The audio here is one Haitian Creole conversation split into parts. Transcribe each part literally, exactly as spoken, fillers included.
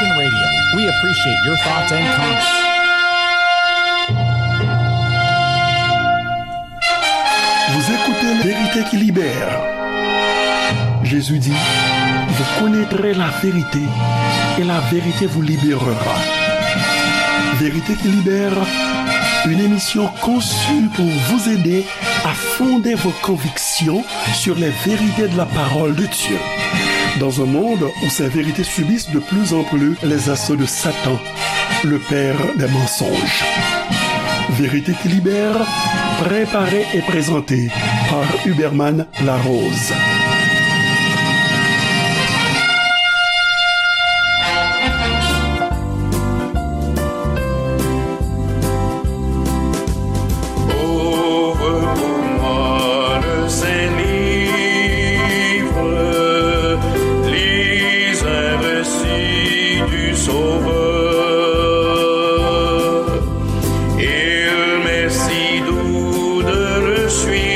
Radio. We appreciate your thoughts and comments. Vous écoutez Vérité qui libère. Jésus dit, vous connaîtrez la vérité et la vérité vous libérera. Vérité qui libère, une émission conçue pour vous aider à fonder vos convictions sur les vérités de la parole de Dieu. Dans un monde où ces vérités subissent de plus en plus les assauts de Satan, le père des mensonges. Vérité qui libère, préparée et présentée par Huberman Larose. Ouvre pour moi le Saint Livre, lis un récit du Sauveur. Il m'est si doux de le suivre,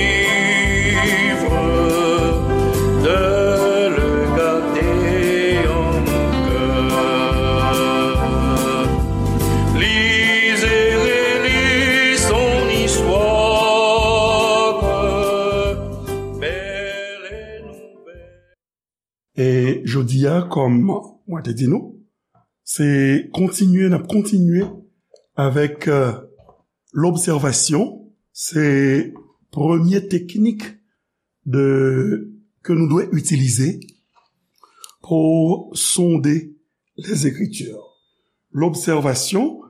de le garder en mon cœur. Lis et relis son histoire, belle et nouvelle. E jodi a, kòm mwen te di nou, se kontinye, n ap kontinye avèk, euh, lobsèvasyon. Se premye teknik de, ke nou dwe itilize pou sonde les Écritures. Lobsèvasyon,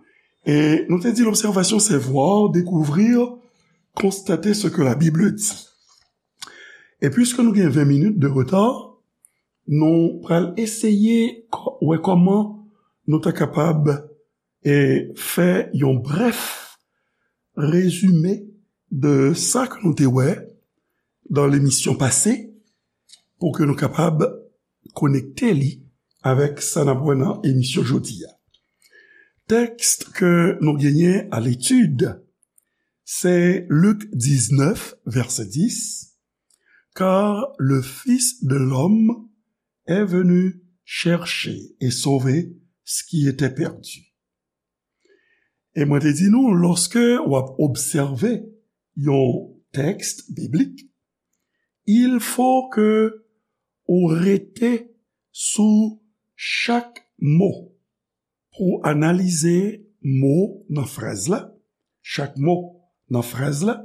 e nou te di lobsèvasyon, c'est voir, découvrir, constater ce que la Bible dit. E piske nou gen ven minit de reta, nou pral eseye kò-, wè kòman nou ta kapab, e, fè yon brèf rezime de sa ke nou te wè dan lemisyon pase, pou ke nou kapab konekte li avèk sa n ap wè nan emisyon jodi a. Tèks ke nou genyen a letid, se Lik diznèf, vèsè dis, Car le Fils de l'homme est venu chercher et sauver ce qui était perdu. E mwen te di nou, lòske w ap obsève yon tèks biblik, il faut que ou rete sou chak mo pou analize mo nan fraz la, chak mo nan fraz la,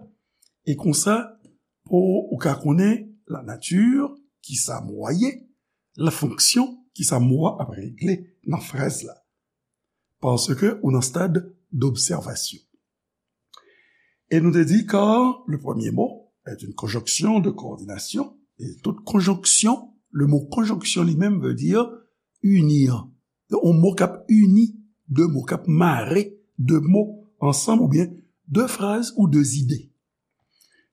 e konsa pou ou ka konnen la nature, kisa mo a ye, la fonction, kisa mo a ap regle nan fraz la. Paske ou nan stad d'observation. E nou te di, car le premier mot est une conjonction de coordination, et toute conjonction, le mot conjonction li menm veut dire unir. Yon mo k ap ini de mo, k ap mare de mo ansanm, oubyen de fraz ou de zide.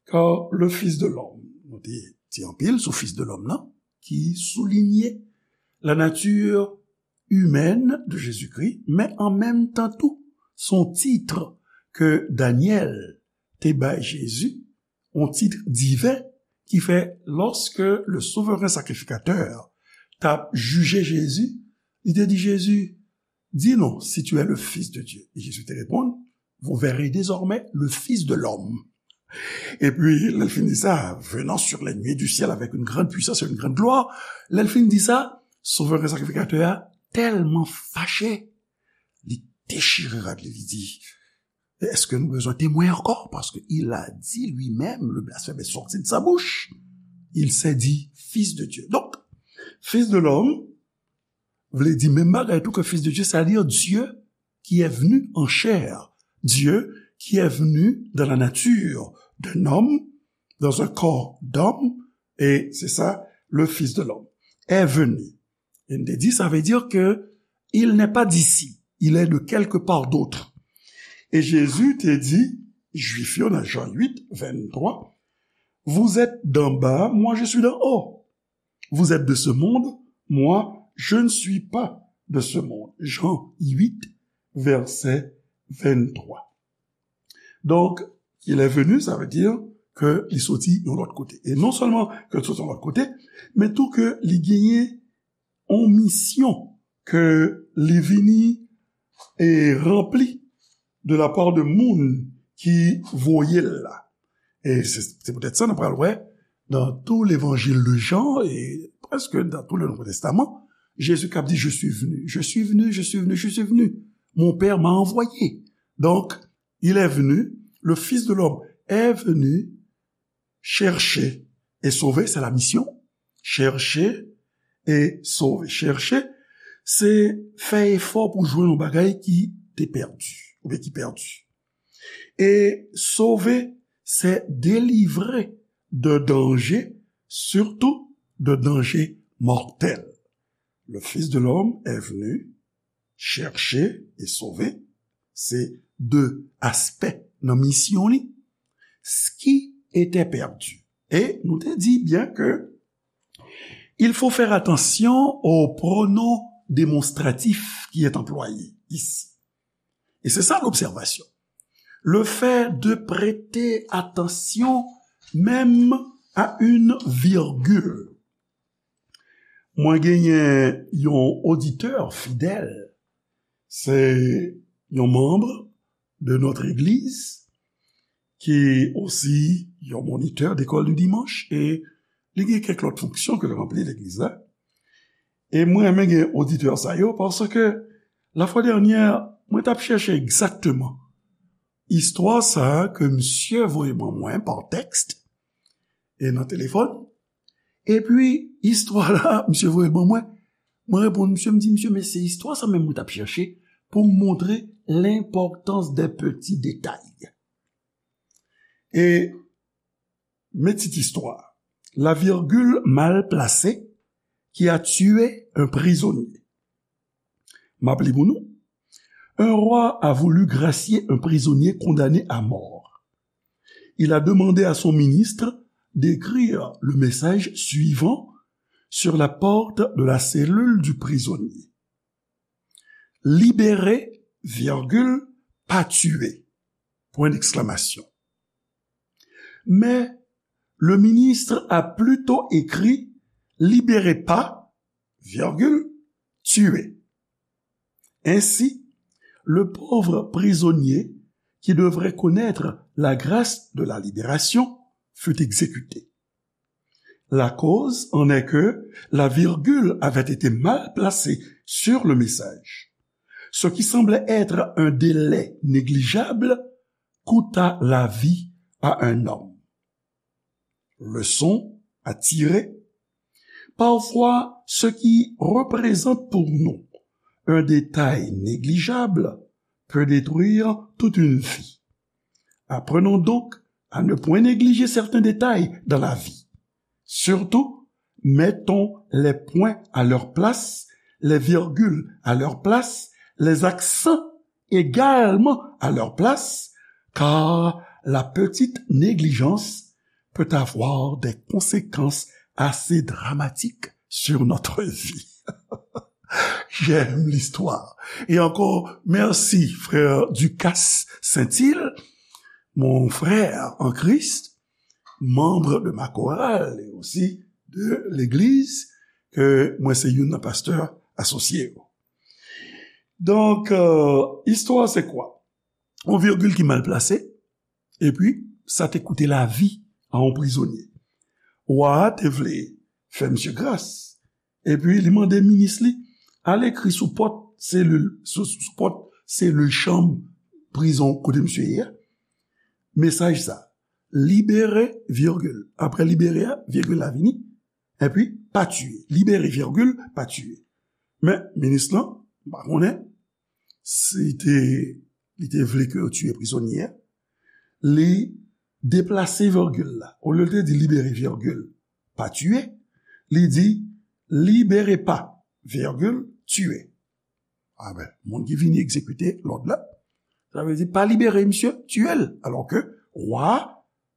Car le Fils de l'homme, nou te di anpil sou Fils de l'homme nan, ki soulinye la nature humaine de Jésus-Christ, men an menm tan tou, se yon tit ke Danyèl te bay Jezi, yon tit diven, ki fè, lorsque le souverain sacrificateur t ap jije Jezi, li te di Jezi, dis-nous si tu es le Fils de Dieu. Et Jésus te réponde, vous verrez désormais le Fils de l'homme. Epi, lè l fin di sa, venant sur les nuées du ciel avec une grande puissance et une grande gloire, lè l fin di sa, souverain sacrificateur a tèlman fache, li dechire rad li, li di, est-ce que nous besoin témoin encore? Parce que il a dit lui-même, le blasphème est sorti de sa bouche. Il s'est dit Fils de Dieu. Donc, Fils de l'homme, vle di menm bagay tou ke Fils de Dieu, c'est-à-dire Dieu qui est venu en chair, Dieu qui est venu dans la nature d'un homme, dans un corps d'homme, et c'est ça, le Fils de l'homme est venu. E n te di, sa vle di ke il n'est pas d'ici, il est de quelque part d'autre. E Jezi te di Jwif yo nan Jan uit, venntwa, vous êtes d'en bas, moi je suis d'en haut. Vous êtes de ce monde, moi, je ne suis pas de ce monde. Jean huit, verset vingt-trois. Donc, il est venu, sa vle di ke li soti yon lòt kote. E non sèlman ke li soti yon lòt kote, men tou ke li genyen yon misyon ke li vini e ranpli de la part de moun ki voye l la. E se, se poutèt sa nou pral wè dans tout l'évangile de Jean et presque dans tout le Nouveau Testament, Jésus k ap di, je suis venu, je suis venu, je suis venu, je suis venu. Mon Père m'a envoyé. Donc, il est venu, le Fils de l'homme est venu chercher et sauver, c'est la mission. Chercher et sauver. Chercher, se fè efò pou jwenn yon bagay ki te pèdi, oubyen ki pèdi. E sauver, se délivrer de danger, surtout de danger mortel. Le Fils de l'homme est venu chercher et sauver, se de aspè nan misyon li, ce qui était perdu. E nou te di byen ke il faut faire attention aux pronoms démonstratifs qui est employé ici. Et c'est ça l'observation. Le fait de prêter attention même à une virgule. Mwen genyen yon oditè fidèl, se yon manm de notre église, ki osi yon monitè d'école du dimanche, e li gen kèk lòt fonksyon ke l ranpli legliz la. E mwen renmen gen oditè sa yo, paske la fwa dènyè, mwen t ap chèche egzakteman istwa sa a ke misye voye ban mwen pa tèks e nan telefòn. Epi, istwa la, misye voye l ban mwen. Mwen reponn misye, m di, misye, men se istwa sa menm mwen t ap chèche pou m montre l'importance des petits détails. E, men tit istwa, La virgule mal placée qui a tué un prisonnier. M ap li pou nou. Un roi a voulu gracier un prisonnier condamné à mort. Il a demandé à son ministre d'écrire le message suivant sur la porte de la cellule du prisonnier. Libéré, virgule, pas tué. Point d'exclamation. Mais le ministre a plutôt écrit libéré pas, virgule, tué. Ainsi, le pauvre prisonnier qui devrait connaître la grâce de la libération fut exécuté. La cause en est que la virgule avait été mal placée sur le message. Ce qui semblait être un délai négligeable coûta la vie à un homme. Leçon à tirer. Parfois, ce qui représente pour nous un détail négligeable peut détruire toute une vie. Apprenons donc à ne point négliger certains détails dans la vie. Surtout, mettons les points à leur place, les virgules à leur place, les accents également à leur place, car la petite négligence peut avoir des conséquences assez dramatiques sur notre vie. J'aime l'histoire. Et encore, merci, frère Ducasse Saint-Île, mon frère en Christ, membre de ma chorale et aussi de l'église, ke mwen se youn nan pastè asosye yo. Donk, euh, istwa se kwa? Yon virgil ki mal plase, epi sa te koute lavi a yon prizonye. Wa a te vle fè misye gras, epi li mande minis li, al ekri sou pòt selil, sou, sou pòt selil chanm prizon kote misye ye a, mesaj sa, libéré, virgule. Apre libéré a, virgil la vini, epi pas tué. Libéré, virgule, pas tué. Men, minis lan, m pa konnen si te, li te vle ke yo tiye prizonye a, li deplase virgil la. Olye l te di libéré, virgule, pas tué, li di libéré pas, virgule, tué. A ben, moun ki vini egzekite lòd la, sa vle di pa libere misye, tiye l. Alò ke wa a,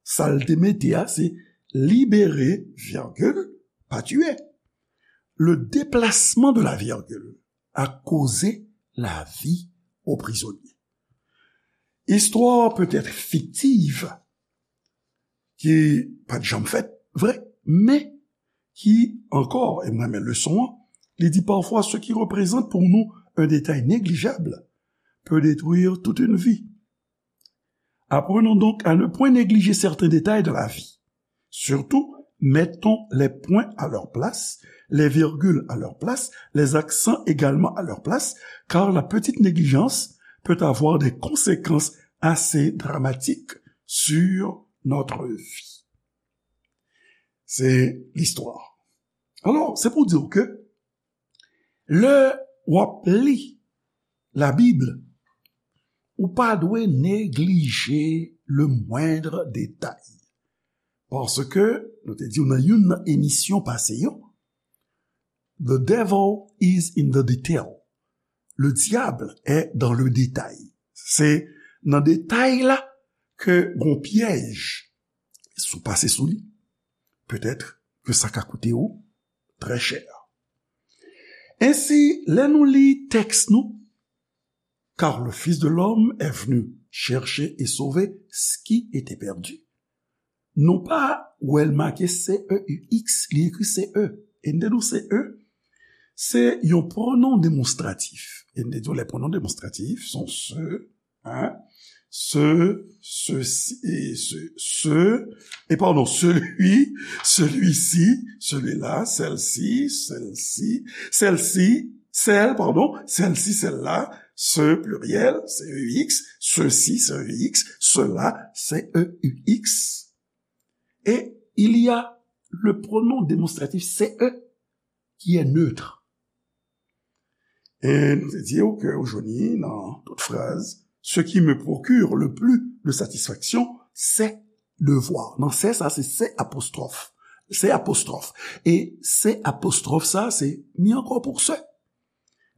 sa l te mete a, se libéré, virgule, pas tué. Le déplacement de la virgule a causé la vie au prisonnier. Histoire peut-être fictive, ki pa t janm fèt, vre, men ki ankò, e m renmen leson an, Li di, parfois, ce qui représente pour nous un détail négligeable peut détruire toute une vie. Apprenons donc à ne point négliger certains détails de la vie. Surtout, mettons les points à leur place, les virgules à leur place, les accents également à leur place, car la petite négligence peut avoir des conséquences assez dramatiques sur notre vie. Se listwa. Alò, se pou di w ke lè w ap li Labib, ou pa dwe neglije le moindre détail. Paske, nou te di w nan youn nan emisyon pase yo, the devil is in the detail. Le diable est dans le détail. Se nan detay la ke gon pyèj, si w pase sou li, petèt ke sa ka koute w trè chè. Ensi, lè nou li tèks nou, car le Fils de l'homme est venu chercher et sauver ce qui était perdu. Nou pa wè l make C E U X, li ekri C E. E n te di w C E, se yon pwonon demonstratif. E n te di w lè pwonon demonstratif, se yon se, hein, se, sesi, e se, se, e pardon, celui, celui-ci, celui-là, celle-ci, celle-ci, celle-ci, celle, pardon, celle-ci, celle-là, ce pluriel, C E U X, ceux-ci, C E U X, ceux-là, C E U X. Et il y a le pronom démonstratif C E qui est neutre. E nou te di w ke ou jwenn li nan tout fraz, ce qui me procure le plus de satisfaction, c'est devoir. Nan c'est sa, se c'est apostrophe. C'est apostrophe. E c'est apostrophe sa, se mi ankò pou se.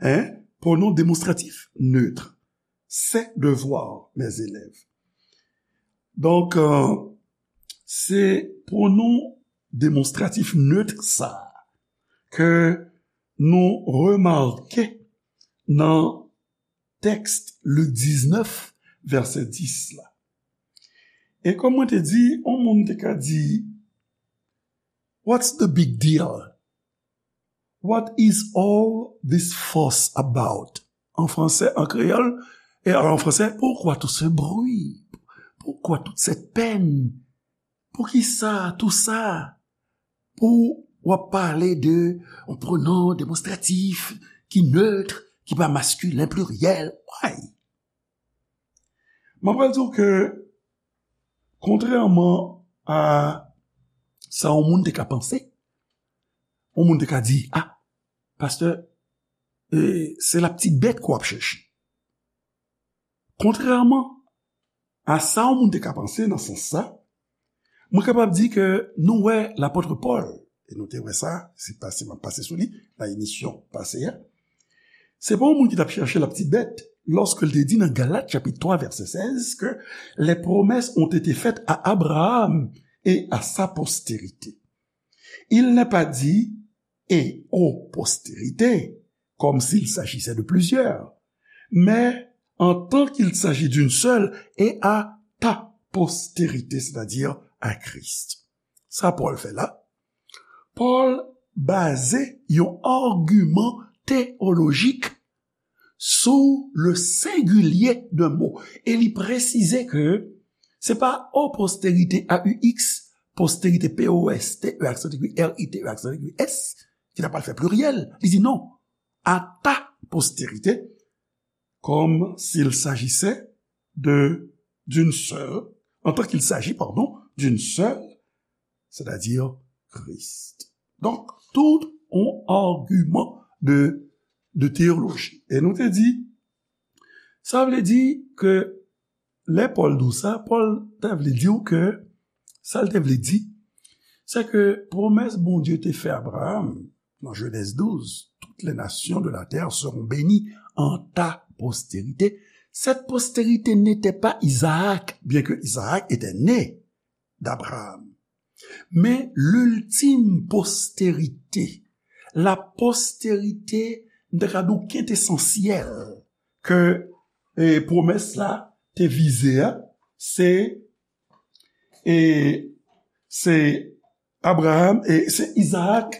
Hein? Pronom démonstratif neutre. C'est devoir, mes élèves. Donk, euh, se pwonon demonstratif neutre sa ke nou remake nan tèks Lik diznèf, vèsè dis la. E kòm mwen te di, yon moun te ka di, "What's the big deal? What is all this fuss about?" En français, en créole, et en français, pourquoi tout ce bruit? Pourquoi toute cette peine? Poukisa tou sa? Pou w ap pale de yon pronon demonstratif ki neutre, ki pa maskilen pliryèl. Why? Mwen pral di w ke, kontrèman a sa yon moun te ka panse, yon moun te ka di, "Ah, pastè, e, se la petite bête ke w ap chèche." Kontrèman a sa yon moun te ka panse nan sans sa, mwen kapab di ke nou wè lapòt Pòl, e nou te wè sa, se pase, m ap pase sou li, nan emisyon pase a. Se pa yon moun ki t ap chèche la petite bête, lòske l te di nan Galat chapit twa, vèsè sèz, ke les promesses ont été faites à Abraham et à sa postérité. Il n'est pas dit et aux postérités, comme s'il s'agissait de plusieurs, mais en tant qu'il s'agit d'une seule et à ta postérité, c'est-à-dire à Christ. Sa Pòl fè la. Pòl baze yon agiman teyolojik sou le sengilye de mo. E li presize ke se pa aux postérités, A U X, postérité, P O S T E aksan tiré R I T E aksan tiré S, ki ta pral fè pliryèl. Li di non, à ta postérité, comme s'il s'agissait de, d'une seule, en tant qu'il s'agit, pardon, d'une seule, c'est-à-dire Christ. Donk, tout yon agiman de, de teyoloji. E nou te di, sa vle di ke lè Pòl di w sa, Pòl te vle di w ke, sa l te vle di, se ke pwomès Bondye te fè Abraham, nan Genèse douze, toutes les nations de la terre seront bénies en ta postérité. Cette postérité n'était pas Isaac, bien que Isaac était né d'Abraham. Men l'ultime postérité, la postérité, m ta ka di w, kentesansyèl, ke, e, pwomès la te vize a, se, e, se Abraham, e se Izaak,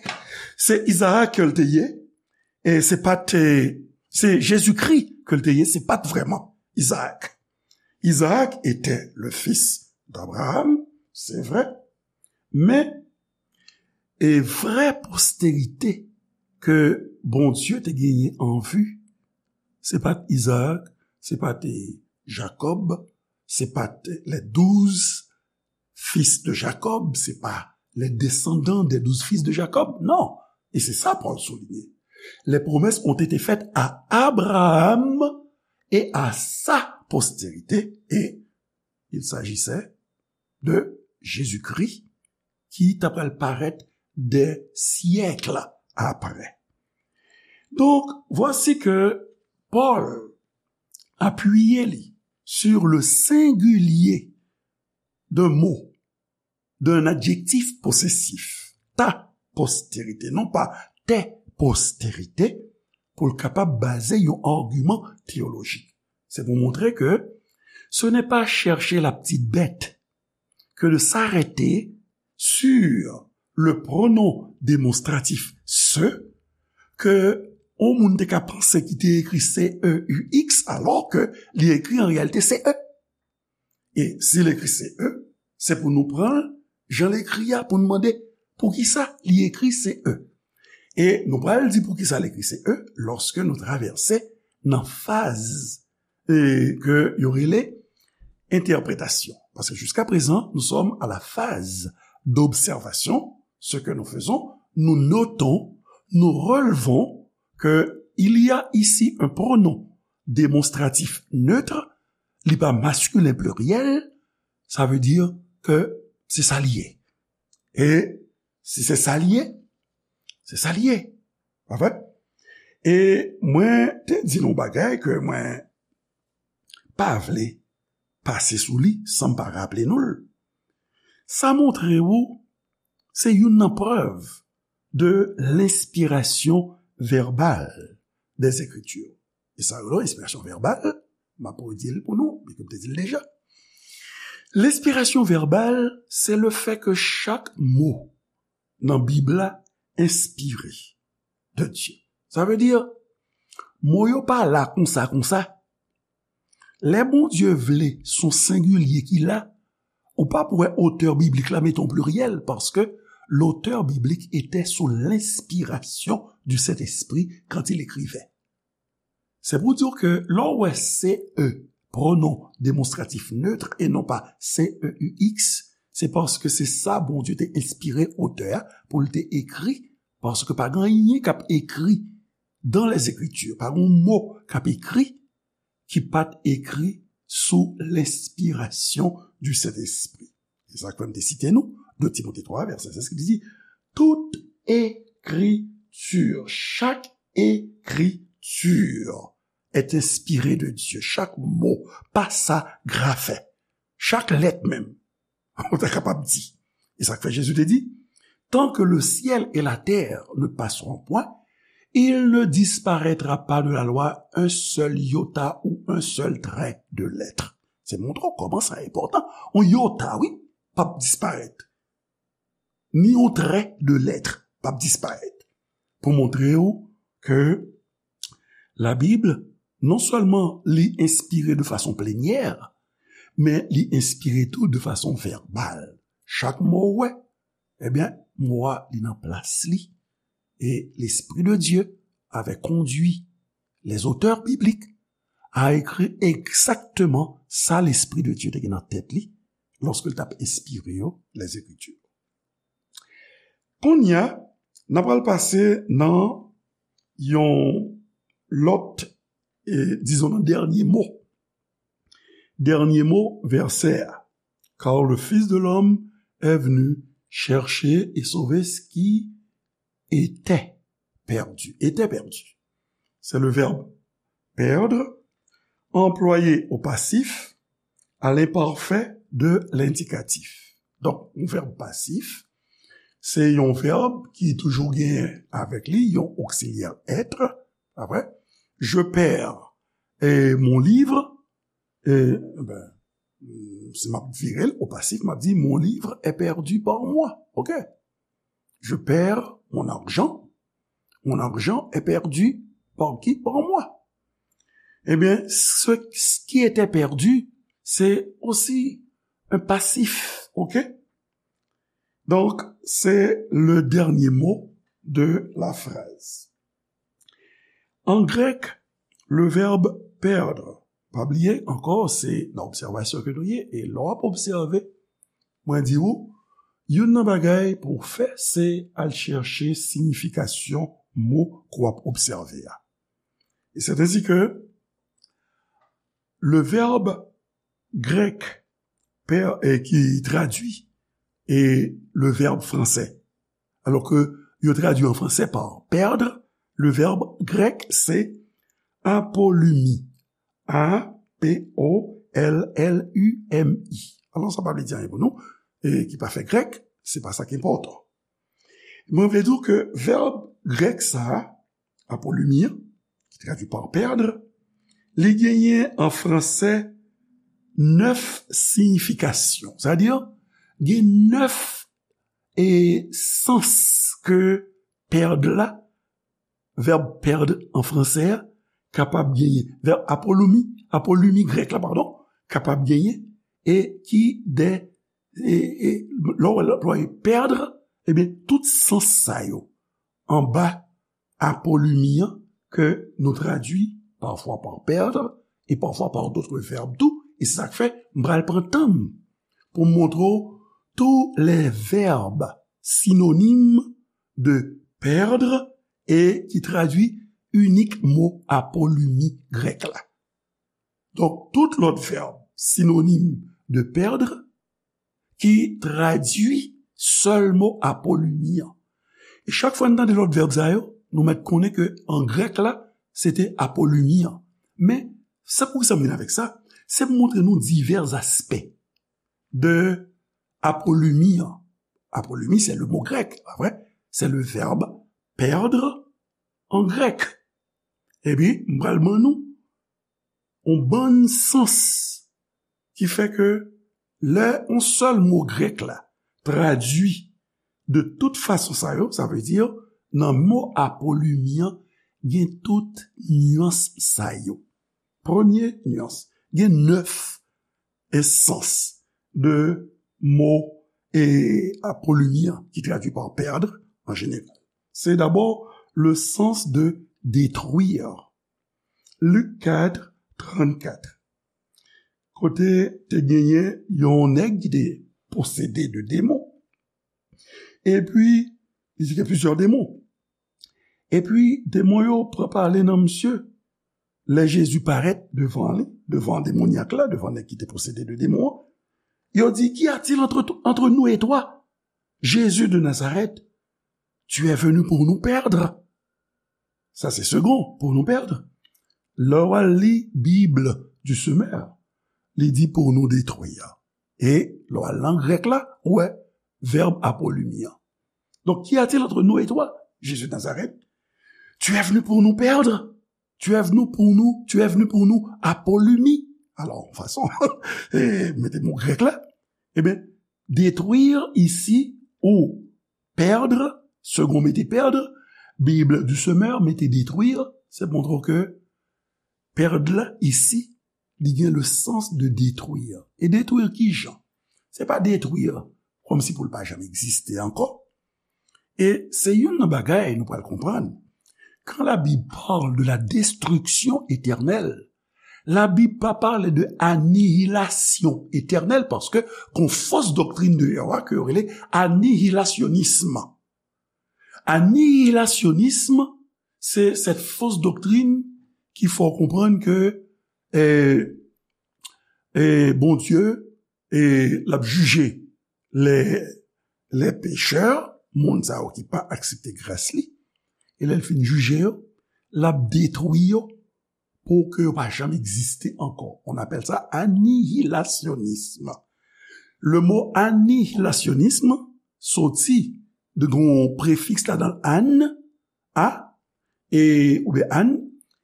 se Izaak ke l te ye, E se pa t, se Jezikri ke l te ye, se pa t vrèman Izaak. Izaak était le fils d'Abraham, c'est vrai, men e vrè posterite ke Bondye te genyen an vi, se pa t Izaak, se pa t Jakòb, se pa t les douze fils de Jacob, se pa les descendants des douze fils de Jacob, non. E se sa Pòl souliye. Les promesses ont été faites à Abraham et à sa postérité, et il s'agissait de Jésus-Christ ki ta pral parèt des siècles après. Donc, voici que Paul appuie li sur le singulier d'un mot, d'un adjectif possessif, ta postérité, non pas tes postérités, pou l kapab baze yon agiman teyolojik. Se pou montre ke ce n'est pas chercher la petite bête que de s'arrêter sur le pronom démonstratif ce, ke yon moun te ka panse ki te ekri C E U X, alò ke li ekri an reyalite C E. E si l ekri C E, se pou nou pran l jan l ekri a, pou nou mande poukisa li ekri C E. E nou pral di poukisa l ekri C E lòske nou travèse nan faz e, ke yo rele entèpretasyon. Paske jiska prezan, nous sommes à la phase d'observation, ce que nous faisons, nous notons, nous relevons que il y a ici un pronom démonstratif neutre, li pa maskilen pliryèl, sa vle di ke se sa li ye. E si se sa li ye, se sa li ye. Pa vre? E mwen te di nou bagay ke mwen pa vle pase sou li san m pa raple nou l. Sa montre ou se youn nan prèv de lenspirasyon vèbal des Écritures. E sa yo rele enspirasyon vèbal, m ap redi l pou nou, byen ke m te di l deja. Lenspirasyon vèbal, se le fè ke chak mo nan Bib la enspire de Dye. Sa vle di, mo yo pa la konsa, konsa. Lè Bondye vle, se yon sengilye ki la, ou p ap wè otè biblik la mete yon pliryèl, paske l'auteur biblique était sous l'inspiration du Saint-Esprit quand il écrivait. Se pou di w ke lè w wè C E, pronom demonstratif neutre e non pa C E U X, se paske se sa Bondye te enspire otè a pou l te ekri, paske pa gen anyen k ap ekri dans les Écritures, pa gen yon mo k ap ekri ki pa t ekri sou lenspirasyon du Sentespri. E sa k fè m te site nou, de Timote twa, vèsè sèz, ki di, tout écriture, chaque écriture est inspirée de Dieu. Chak mo, pa sa grafen, chak lèt menm, ou ta kapab di. E sa k fè Jezi te di, tant que le ciel et la terre ne passeront point, il ne disparaîtra pas de la loi un seul iota ou un seul trait de lettre. Se montre w kòman sa enpòtan. Yon iota, wi, p ap disparèt. Ni yon trait de lettre p ap disparèt. Pou montre w ke Labib, non sèlman li enspire de fason plenyè, men li enspire tou de fason vèbal. Chak mo w wè, ebyen, mo a li nan plas li. Et l'Esprit de Dieu avait conduit les auteurs bibliques à écrire exactement sa Lespri de Dye te gen nan tèt li lòske l t ap enspire yo, les Écritures. Kounye a, n ap pral pase nan yon lòt, e, dizon, nan dènye mo. Dènye mo vèsè a. Car le Fils de l'homme est venu chercher et sauver ce qui était perdu. Était perdu. C'est le verbe perdre, employé au passif, à l'imparfait de l'indicatif. Donk, yon vèb pasif, se yon vèb ki toujou genyen avèk li yon oksilyè être, pa vre? Je perds, eh, mon livre, eh, ben, si m ap vire l o pasif, m ap di, mon livre est perdu par moi. Ok? Je perds mon argent, Mon argent est perdu par qui? Par moi. Eh bien, ce, ce qui était perdu, c'est aussi un passif, ok? Donc, c'est le dernier mot de la phrase. En grec, le verbe perdre, pa bliye ankò, se nan obsèvasyon ke nou ye, e lè w ap obsève, mwen di ou, youn nan bagay pou w fè, se al chèche siyifikasyon mo ke w ap obsève a. Et c'est ainsi que le verbe grec per, eh, qui traduit et le verbe français. Alors que yo tradui en français par perdre, le verbe grec c'est apolumi. A P O L L U M I. Alò, sa pa vle di anyen pou nou, e ki pa fè grèk, se pa sa ki enpòtan. Mwen vle di w ke vèb grèk sa a, apolumi an, ki tradui pa pèd, li genyen an franse nèf siyifikasyon. Sa vle di, gen nèf, e, sans ke pèd la, vèb pèd an franse a, kapab genyen. Vèb apolumi, apolumi grèk la, padon, kapab genyen, e ki de, e, e, lè w, lè w pèd, ebyen, tout sans sa yo anba apolumi an ke nou tradui pafwa pa pèd e pafwa pa dòt vèb tou. E se sa k fè m pral pran tan m pou m montre w tous les verbes synonymes de perdre e ki tradui inik mo apolumi grèk la. Donk, tout lòt vèb sinonim de perdre ki tradui sèl mo apolumi an. E chak fwa n tande lòt vèb sa yo, nou mèt konnen ke an grèk la, se te apolumi an. Men, sa poukisa m vin avèk sa? Se pou montre nou divè aspè de apolumi an. Apolumi, c'est le mot grec, pa vre? C'est le verbe perdre en grec. Epi, m pral ban nou yon bann sans ki fè ke lè yon sèl mo grèk la tradui de tout fason sa yo, sa vle di nan mo apolumi an, gen tout nyans sa yo. Premye nyans, gen nèf sans de mo e apolumi an ki tradui pa pèd an jeneral. Se dabò le sens de détruire. Lik kat, trannkat. Kote te genyen yon nèg ki te posede de demon. Epi, li te gen plizyè demon. Epi, demon yo pran pale nan misye. Lè Jezi parèt devan li, devan demonyak la, devan nèg ki te posede de demon an, yo di, "Qu'y a-t-il entre, entre nous et toi, Jésus de Nazareth? Tu es venu pour nous perdre?" Sa se segon, pour nous perdre. Lè w al li Bible du semeur, li di pour nous détruire. E lè w al nan grèk la, ou wè vèb apolumi an. Donc, qu'y a-t-il entre nous et toi, Jésus de Nazareth? Tu es venu pour nous perdre? Tu es venu pour nous, tu es venu pour nous apolumi? Alò, fason, e, mete mo grèk la, ebyen, détruire isi ou perdre, segon mete perdre, Bible du semeur mete détruire, se montre ke perdre la isi, li gen le sens de détruire. E détruire ki jan? Se pa détruire kòmsi pou l pa janm egziste ankò. E se youn nan bagay nou pral konprann. Quand la Bible parle de la destruction éternelle, la Bib pa pale de anihilasyon etènèl, paske gon fos doktrin de yo a ke yo rele anihilasyonism. Anihilasyonism, se cette fausse doctrine ki fè w konprann ke, e, e, Bondye, e, l ap jije les, les pécheurs, moun sa yo ki pa aksepte gras li, e lè l fin jije yo, l ap detwi yo pou ke yo pa janm egziste ankò. On appelle ça anihilasyonism. Le mo anihilasyonism soti de gon prefiks ladan l, an, a, e, oubyen an,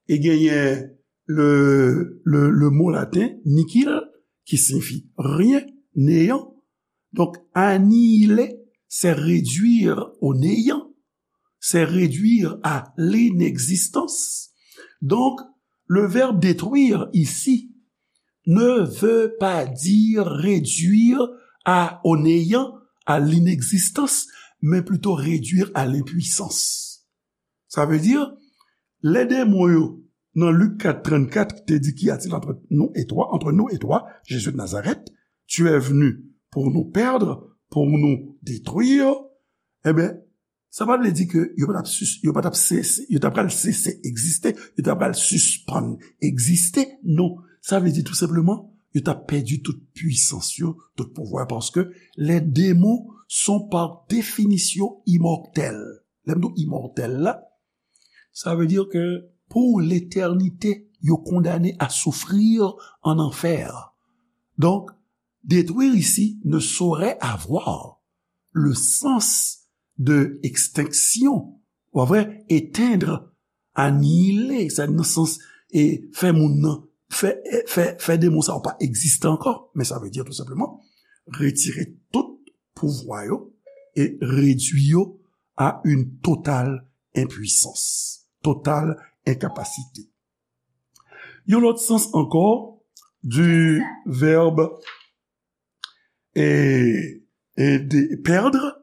e genyen le, le, le mo laten nihil, ki siyifi rien, néant. Donk, annihiler, c'est réduire au néant. c'est réduire à l'inexistence. Donc, le verbe détruire ici ne veut pas dire réduire à, au néant, à l'inexistence, mais plutôt réduire à l'impuissance. Sa vle di, lè demon yo, nan Lik kat trannkat, te di, qu'y a-t-il entre nous et toi, entre nous et toi, Jésus de Nazareth, tu es venu pour nous perdre, pour nous détruire, ebyen, sa pa vle di ke yo pa t ap sis-, yo pa t ap sese, yo ta pral sese egziste, yo ta pral sispann egziste. Non, sa vle di tou senpleman, yo t ap pèdi tout pwisans yo, tout pouvwa, paske les démons sont par définition immortels. Lè m di w imòtèl la, sa vle di ke pou letènite, yo kondane à souffrir en enfer. Donc, détruire ici ne saurait avoir le sens de extinction, ou pa vre, éteindre, anile, sa nan sans, e fè moun nan, fè, fè, fè demon sa yo pa egziste ankò, men sa vle di tou senpleman, retire tout pouvwa yo e redwi yo à une totale impuissance, totale incapacité. Yon lòt sans ankò du verbe e, e de perdre,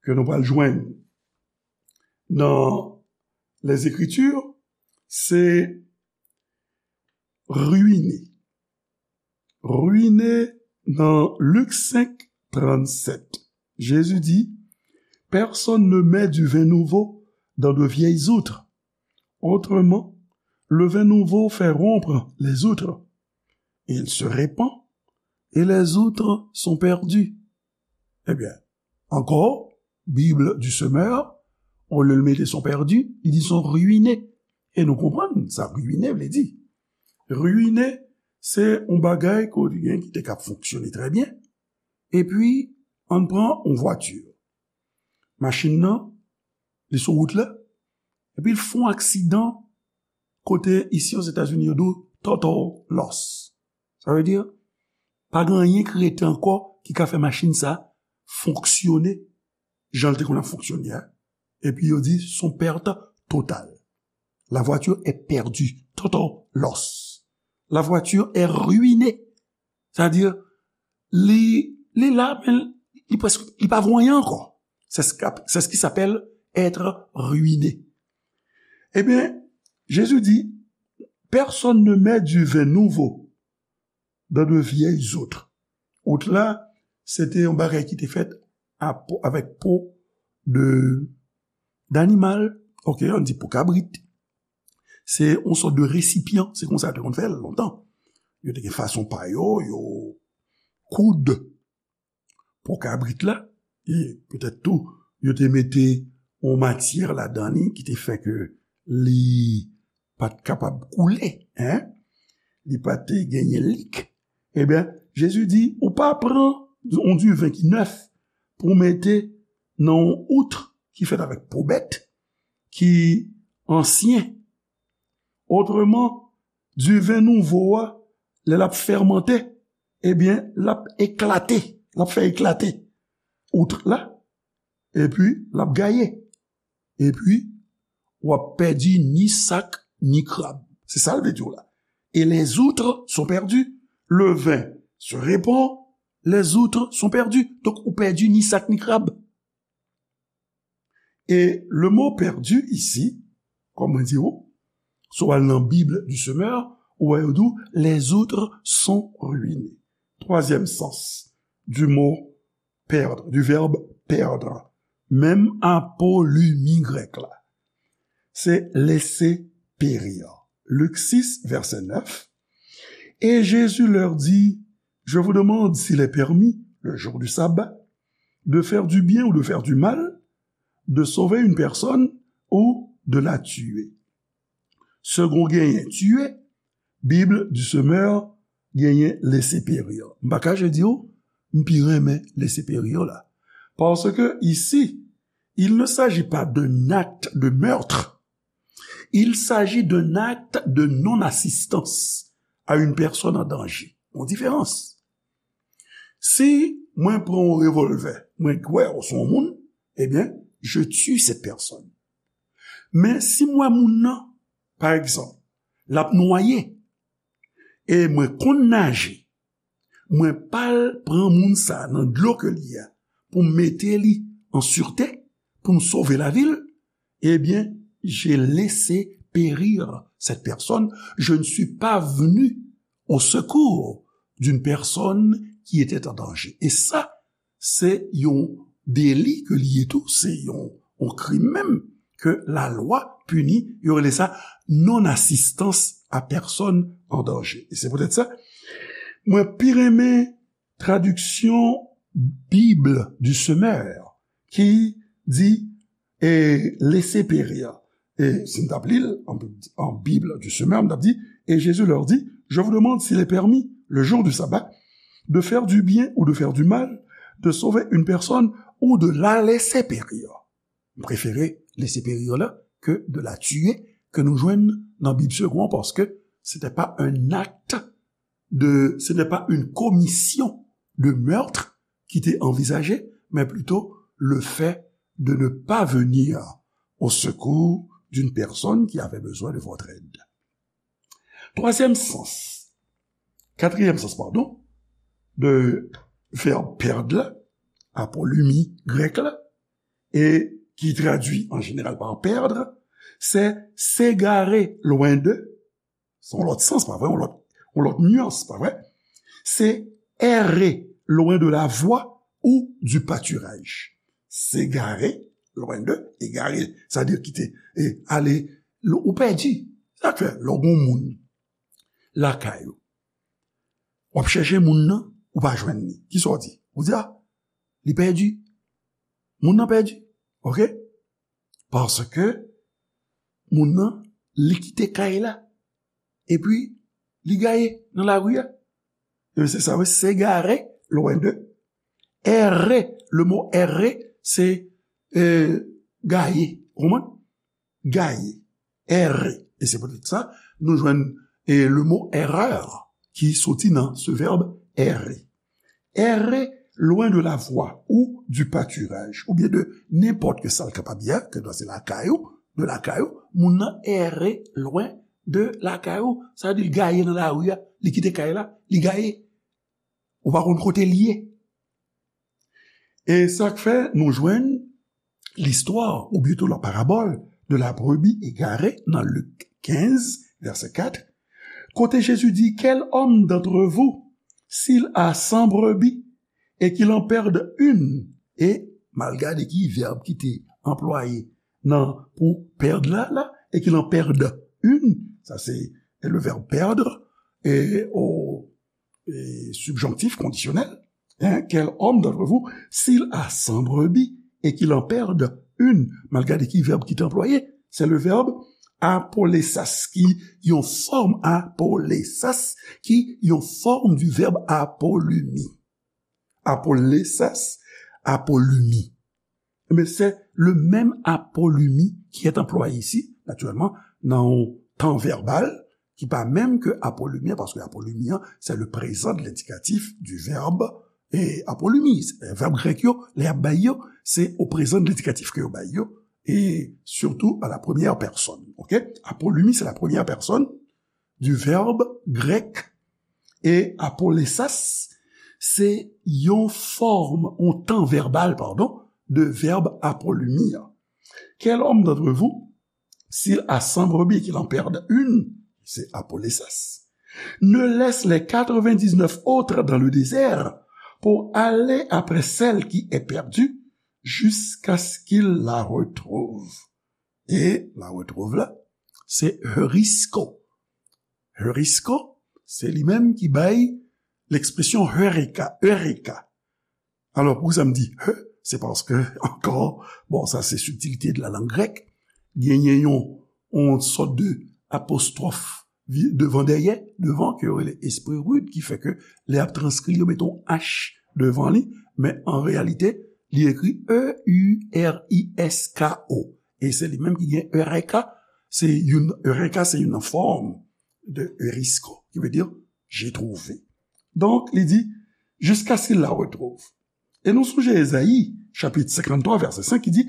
ke nou pral jwenn nan les Écritures, se ruiner. Ruiner nan Lik senk, trannkat. Jésus dit, personne ne met du vin nouveau dans de vieilles outres. Autrement, le vin nouveau fait rompre les outres. Il se répand et les outres sont perdues. Ebyen, ankò, Bible du Semeur, olye l mete sont perdus, li di sont ruinés. E nou konprann sa ruine vle di. Ruine, se yon bagay ke w gen ki te ka fonksyone trè byen, epi ann pran yon vwati. Machin nan, li sou wout la, epi l fè yon aksidan kote isi Ozetazini yo di w total loss. Sa vle di, pa gen anyen ki rete ankò ki ka fè machin sa fonksyone jan l te konn ap fonksyone a. Epi yo di, son perte totale. La voiture est perdue, total loss. La voiture est ruinée. Sa vle di, li, li la, men li prèske, li pa vo anyen ankò. C'est ce qu'a-, c'est ce qui s'appelle être ruiné. Ebyen, Jésus dit, personne ne met du vin nouveau dans de vieilles outres. Out la, se te yon bagay ki te fèt a po, avèk po de, d'animal, ok, ann di po kabrit. Se yon sòt de resipyan, se konsa yo te konn fè l lontan. Yo te gen fason pa yo, yo koud po kabrit la, e petèt tou, yo te mete yon matyè ladan li ki te fè ke li pa t kapab koule, en, li pa te genyen lik. Ebyen, Jezi di, ou pa pran yon diven ki nèf pou w mete nan yon out ki fèt avèk po bèt, ki ansyen. Otreman, diven nouvo a, lè l ap fèmante, ebyen, l ap eklate, l ap fè eklate out la, epi l ap gaye. Epi, w ap pèdi ni sak, ni krab. Se sa l vle di w la. Et les outres sont perdus. Le vin se répand, les outres sont perdus. Donk, ou pèdi ni sak, ni krab. Et le mot perdu ici, kòm mwen di w, si w al nan Bible du Semeur, ou wè yo di w, les outres sont ruinés. Troisième sens du mot perdre, du verbe perdre. Menm apolimi grèk la. Se laisser périr. Lik sis, vèsè nèf. Et Jésus leur dit, je vous demande s'il est permis, le jour du sabbat, de faire du bien ou de faire du mal, de sauver une personne ou de la tuer. Segond genyen tuer, Bible du Semeur genyen laisser périr. M pa kache di w, m pi renmen laisser périr la. Parce que ici, il ne s'agit pas d'un acte de meurtre. Il s'agit d'un acte de non-assistance à une personne en danger. Yon diferans. Si mwen pran yon revòlvè, mwen kwè w se yon moun, ebyen, je tue cette personne. Men si m wè moun nan, pa egzanp, l ap nwaye, e mwen konn naje, mwen pa al pran moun sa nan dlo ke l ye a pou m mete li an sirte, pou m sove lavi l, eh bien, j'ai laissé périr cette personne. Je ne suis pas venu au secours d'une personne qui était en danger. E sa, se yon deli ke li ye tou, se yon, yon krim menm ke lalwa pini, yo rele sa non-assistance à personne en danger. E se poutèt sa, mwen pi renmen tradiksyon Bible du Semeur ki di, e, laissez périr. E si m t ap li l an, an Bible du Semeur, m t ap di, et Jésus leur dit, je vous demande s'il est permis, le jour du sabbat, de faire du bien ou de faire du mal, de sauver une personne ou de la laisser périr. M prefere laisser périr la ke de la tuer, ke nou jwenn nan Bib Segond, paske c'était pas un acte de, ce n'est pas une commission de meurtre ki te anvizaje, mais plutôt le fait de ne pas venir au secours d'une personne qui avait besoin de votre aide. Troisième sens, quatrième sens, pardon, de verbe perdre la, apolumi grèk la, et qui traduit en général par perdre, c'est s'égarer loin de, se yon lòt sans, pa vre? Yon lòt, yon lòt nyans, pa vre? Se errer loin de la voie ou du pâturage. S'égarer loin de, égarer, sa vle di kite, e, ale, ou pèdi. Sa k fè, lè w gen yon moun lakay ou, w ap chèche moun nan, ou pa jwenn li. Kisa w di? Ou di, a, li pèdi. Moun nan pèdi. Oke? Paske moun nan, li kite kay la. Epi, li gaye nan lari a. E se sa, wi, s'égarer loin de. Errer, le mot errer, se, e, gaye. Ou konprann? Gaye. Errer. E se poutèt sa, nou jwenn, e, le mot erreur ki soti nan ce verbe errer. Errer loin de la voie ou du pâturage, oubyen de nenpòt ke sa l kapab ye, ke se lakay ou, de lakay ou, moun nan errer loin de lakay ou, sa vle di l gaye nan lari a, li kite kay la, li gaye. Ou pa konn kote l ye. E sa k fè nou jwenn listwa, ou plito la parabole de la brebis égarée nan Lik kenz, vèsè kat, kote Jezi di, quel homme d'entre vous, s'il a cent brebis et qu'il en perde une, e m al gade ki vèb ki te anplwaye nan pou perdre la, la, et qu'il en perde une, sa se le verbe perdre, e o e, subjonctif conditionnel, hein, quel homme d'entre vous, s'il a cent brebis et qu'il en perde une, m al gade ki vèb ki te anplwaye, se le verbe apolesas, ki yon fòm apolesas, ki yon fòm du verbe apolumi. Apolesas, apolumi. Ebyen, se le menm apolumi ki est anplwaye isi, natirèlman, nan yon tan vèbal ki pa menm ke apolumi an, paske apolumi an, se le prezan de lendikatif du verbe, e apolumi. Vèb grèk yo, lè y ap bay yo, se o prezan de lendikatif ke yo bay yo, e surtout à la première personne. Oke? Apolumi, se la première personne du verbe grec. E apolesas, se yon fòm, yon tan vèbal, pardon, de verbe apolumi an. Quel homme d'entre vous, s'il a cent brebis et qu'il en perde une, c'est apolesas, ne laisse les quatre-vingt-dix-neuf autres dans le désert pour aller après celle qui est perdue jusqu'à ce qu'il la retrouve. E la retrouve la, se heurisko. Heurisko, se li menm ki bay lekspresyon heureka, eureka. Alò, poukisa m di he, se paske, ankò, bon, sa se subtilité de la langue grecque, genyen yon, yon sòt de apostwòf vi-, devan dèyè, devan, ke yo rele esprit rude, ki fè ke lè y ap transkri l, yo mete yon H devan li, men an reyalite, li ekri E U R I S K O. E se li menm ki gen eureka, se youn, eureka se youn nan fòm de heurisko, ki vle di, j'ai trouvé. Donk, li di, jusqu'à ce qu'il la retrouve. E nou sonje Ezayi, chapit senkanntwa, vèsè senk, ki di,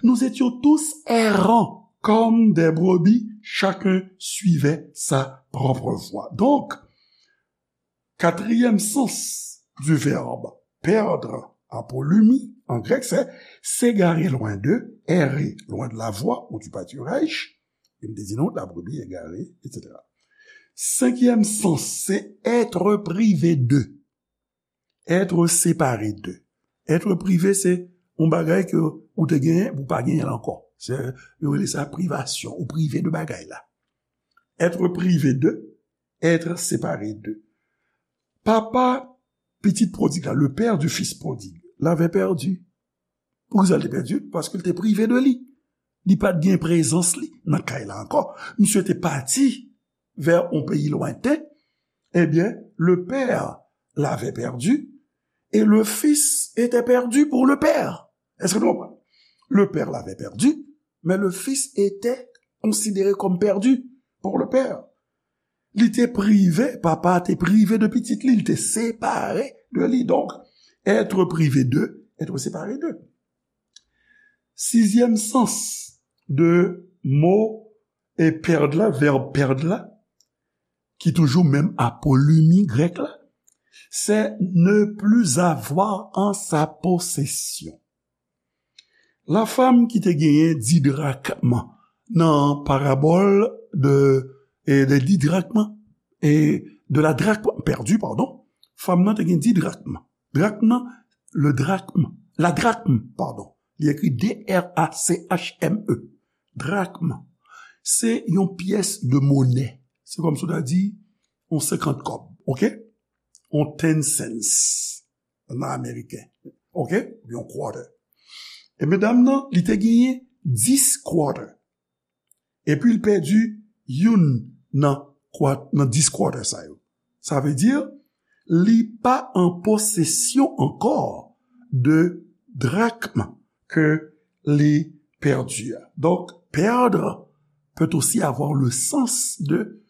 nous étions tous errants comme des brebis, chacun suivait sa propre voie. Donc, quatrième sens du verbe perdre, apolumi, en grec, c'est s'égarer loin d'eux, errer loin de la voie ou du pâturage. E m te di nou, la brebis égarée, et cetera. Cinquième sens, c'est être privé d'eux. Être séparé d'eux. Être privé, se yon bagay ke ou te genyen, ou pa genyen l ankò. Se, yo rele sa privasyon, ou prive de bagay la. Être privé d'eux, être séparé d'eux. Papa pitit prodig la, le père du fils prodigue, l'avait perdu. Poukisa l te pèdi? Paske l te prive de li. Li pa t gen prezans li nan kay la ankò. Misye te pati vè yon peyi lwenten. Ebyen, le père l'avait perdu et le fils était perdu pour le père. Èske nou konprann? Le père l'avait perdu, mais le fils était considéré comme perdu pour le père. Li te prive, papa te prive de pitit li, li te separe de li. Donc, être privé d'eux, être séparé d'eux. Sizyèm sans de mo e perdre la, verbe perdre la, ki toujou menm apolumi grèk la, c'est ne plus avoir en sa possession. La femme ki te genyen dis drachmes nan parabòl de, e de dis drachmes e de la drachme perdue, pardon, fanm nan te gen dis drachmes. Drachme nan, le drachme, la drachme, pardon. Li ekri D R A C H M E. Drachme. Se yon pyès de monè. Se kòmsi w ta di yon senkant kòb, oke? Yon ten cents nan ameriken, oke? Yon quarter. E medam nan, li te genyen dis quarter. Epi l pèdi youn nan kwa-, nan dis quarter sa yo. Sa vle di, li pa an posesyon ankò de drachme ke li pèdi a. Donc, perdre peut aussi avoir le sens de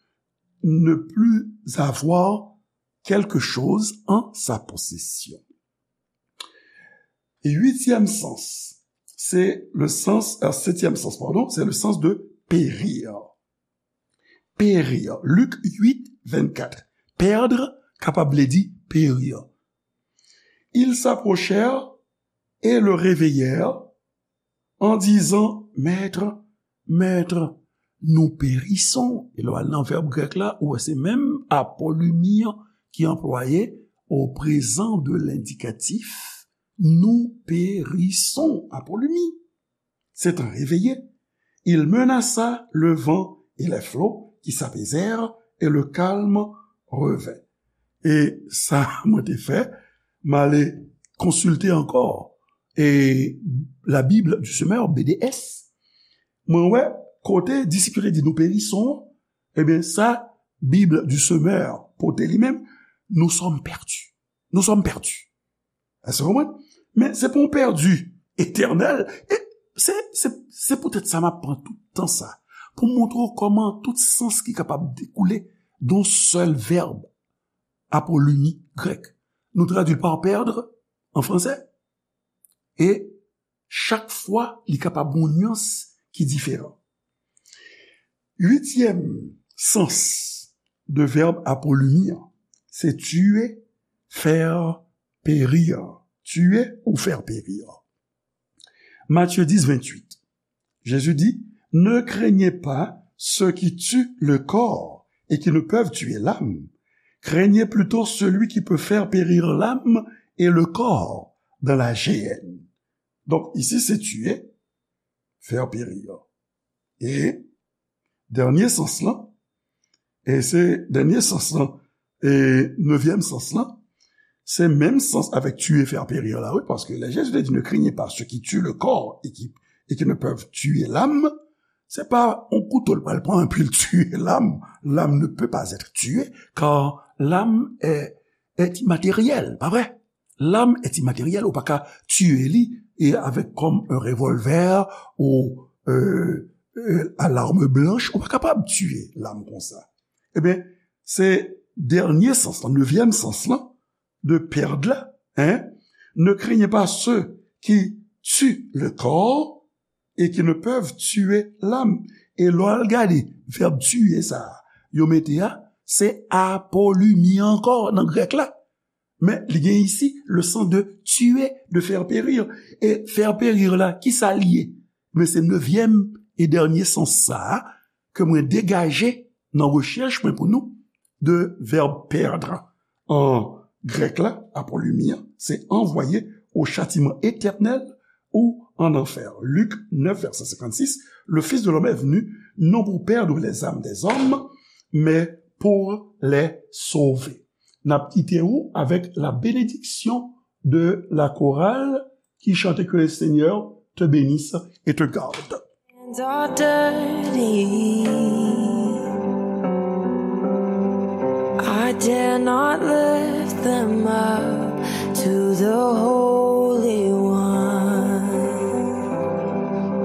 ne plus avoir quelque chose en sa possession. Huitième sens, c'est le sens, euh, septième sens, pardon, c'est le sens de périr. Périr. Luc huit, vingt-quatre. Perdre, kapab vle di périr. Ils s'approchèrent et le réveillèrent en disant, Maître, Maître, nous périssons. E lè w al nan vèb grèk la, ou wè se menm apolumi an ki anplwaye au présent de l'indicatif, nous périssons, apolumi. S'étant réveillés, il menaça le vent et les flots qui s'apaisèrent et le calme revint. E sa mwen te fè, m ale konsilte ankò, e, la Bible du Semeur, B D S. Mwen wè, kote disip yo te di nou périssons, ebyen, sa Bible du Semeur pote li menm, nous sommes perdus. Nous sommes perdus. Èske w konprann? Men se pa yon pèdi etènèl. E se, se, se poutèt sa m ap pran tout tan sa pou m montre w kòman tout sans ki kapab dekoule de yon sèl vèb, apolumi grèk. Nou tradui l pa perdre an fransè. E chak fwa, li kapab yon nyans ki diferan. Uityèm sans de vèb apolumi an, se tuer, faire périr. Tuer ou faire périr. Matthieu dix, vingt-huit. Jésus dit, ne craignez pas ceux qui tuent le corps et qui ne peuvent tuer l'âme. Craignez plutôt celui qui peut faire périr l'âme et le corps dans la géhenne. Donk, isi se tuer, faire périr. E dènye sans lan, e se dènye sans lan, e nevyèm sans lan, se menm sans avèk tuer, faire périr la, wi, paske lè Jezi te di, ne craignez pas ceux qui tuent le corps et qui, et qui ne peuvent tuer l'âme, se pa yon kouto l pral pran epi l tiye lam. L'âme ne peut pas être tuée, car l'âme est, est immatérielle, pa vre? L'âme est immatérielle, ou pa ka tiye li, e avèk kòm un revolver ou, euh, euh, à l'arme blanche, ou pa kapab tiye lam konsa. Ebyen, se dènye sans lan, nevyèm sans lan, de perdre la, hein? Ne craignez pas ceux qui tuent le corps et qui ne peuvent tuer l'âme. E lè w al gade vèb tiye sa a, yo mete a, se apolumi ankò nan grèk la. Men li gen isi le sans de tuer, de faire périr. E faire périr la, ki sa l ye? Men se nevyèm e dènye sans sa a ke mwen degaje nan rechèch mwen pou nou de vèb perdre. An grèk la, apolumi an, se envoyer au châtiment éternel ou en enfer. Luc neuf, verset cinquante-six, le Fils de l'homme est venu non pour perdre les âmes des hommes, mais pour les sauver. N ap kite ou avèk la bénédiction de la chorale qui chante que le Seigneur te bénisse et te garde. Hands are dirty. I dare not lift them up.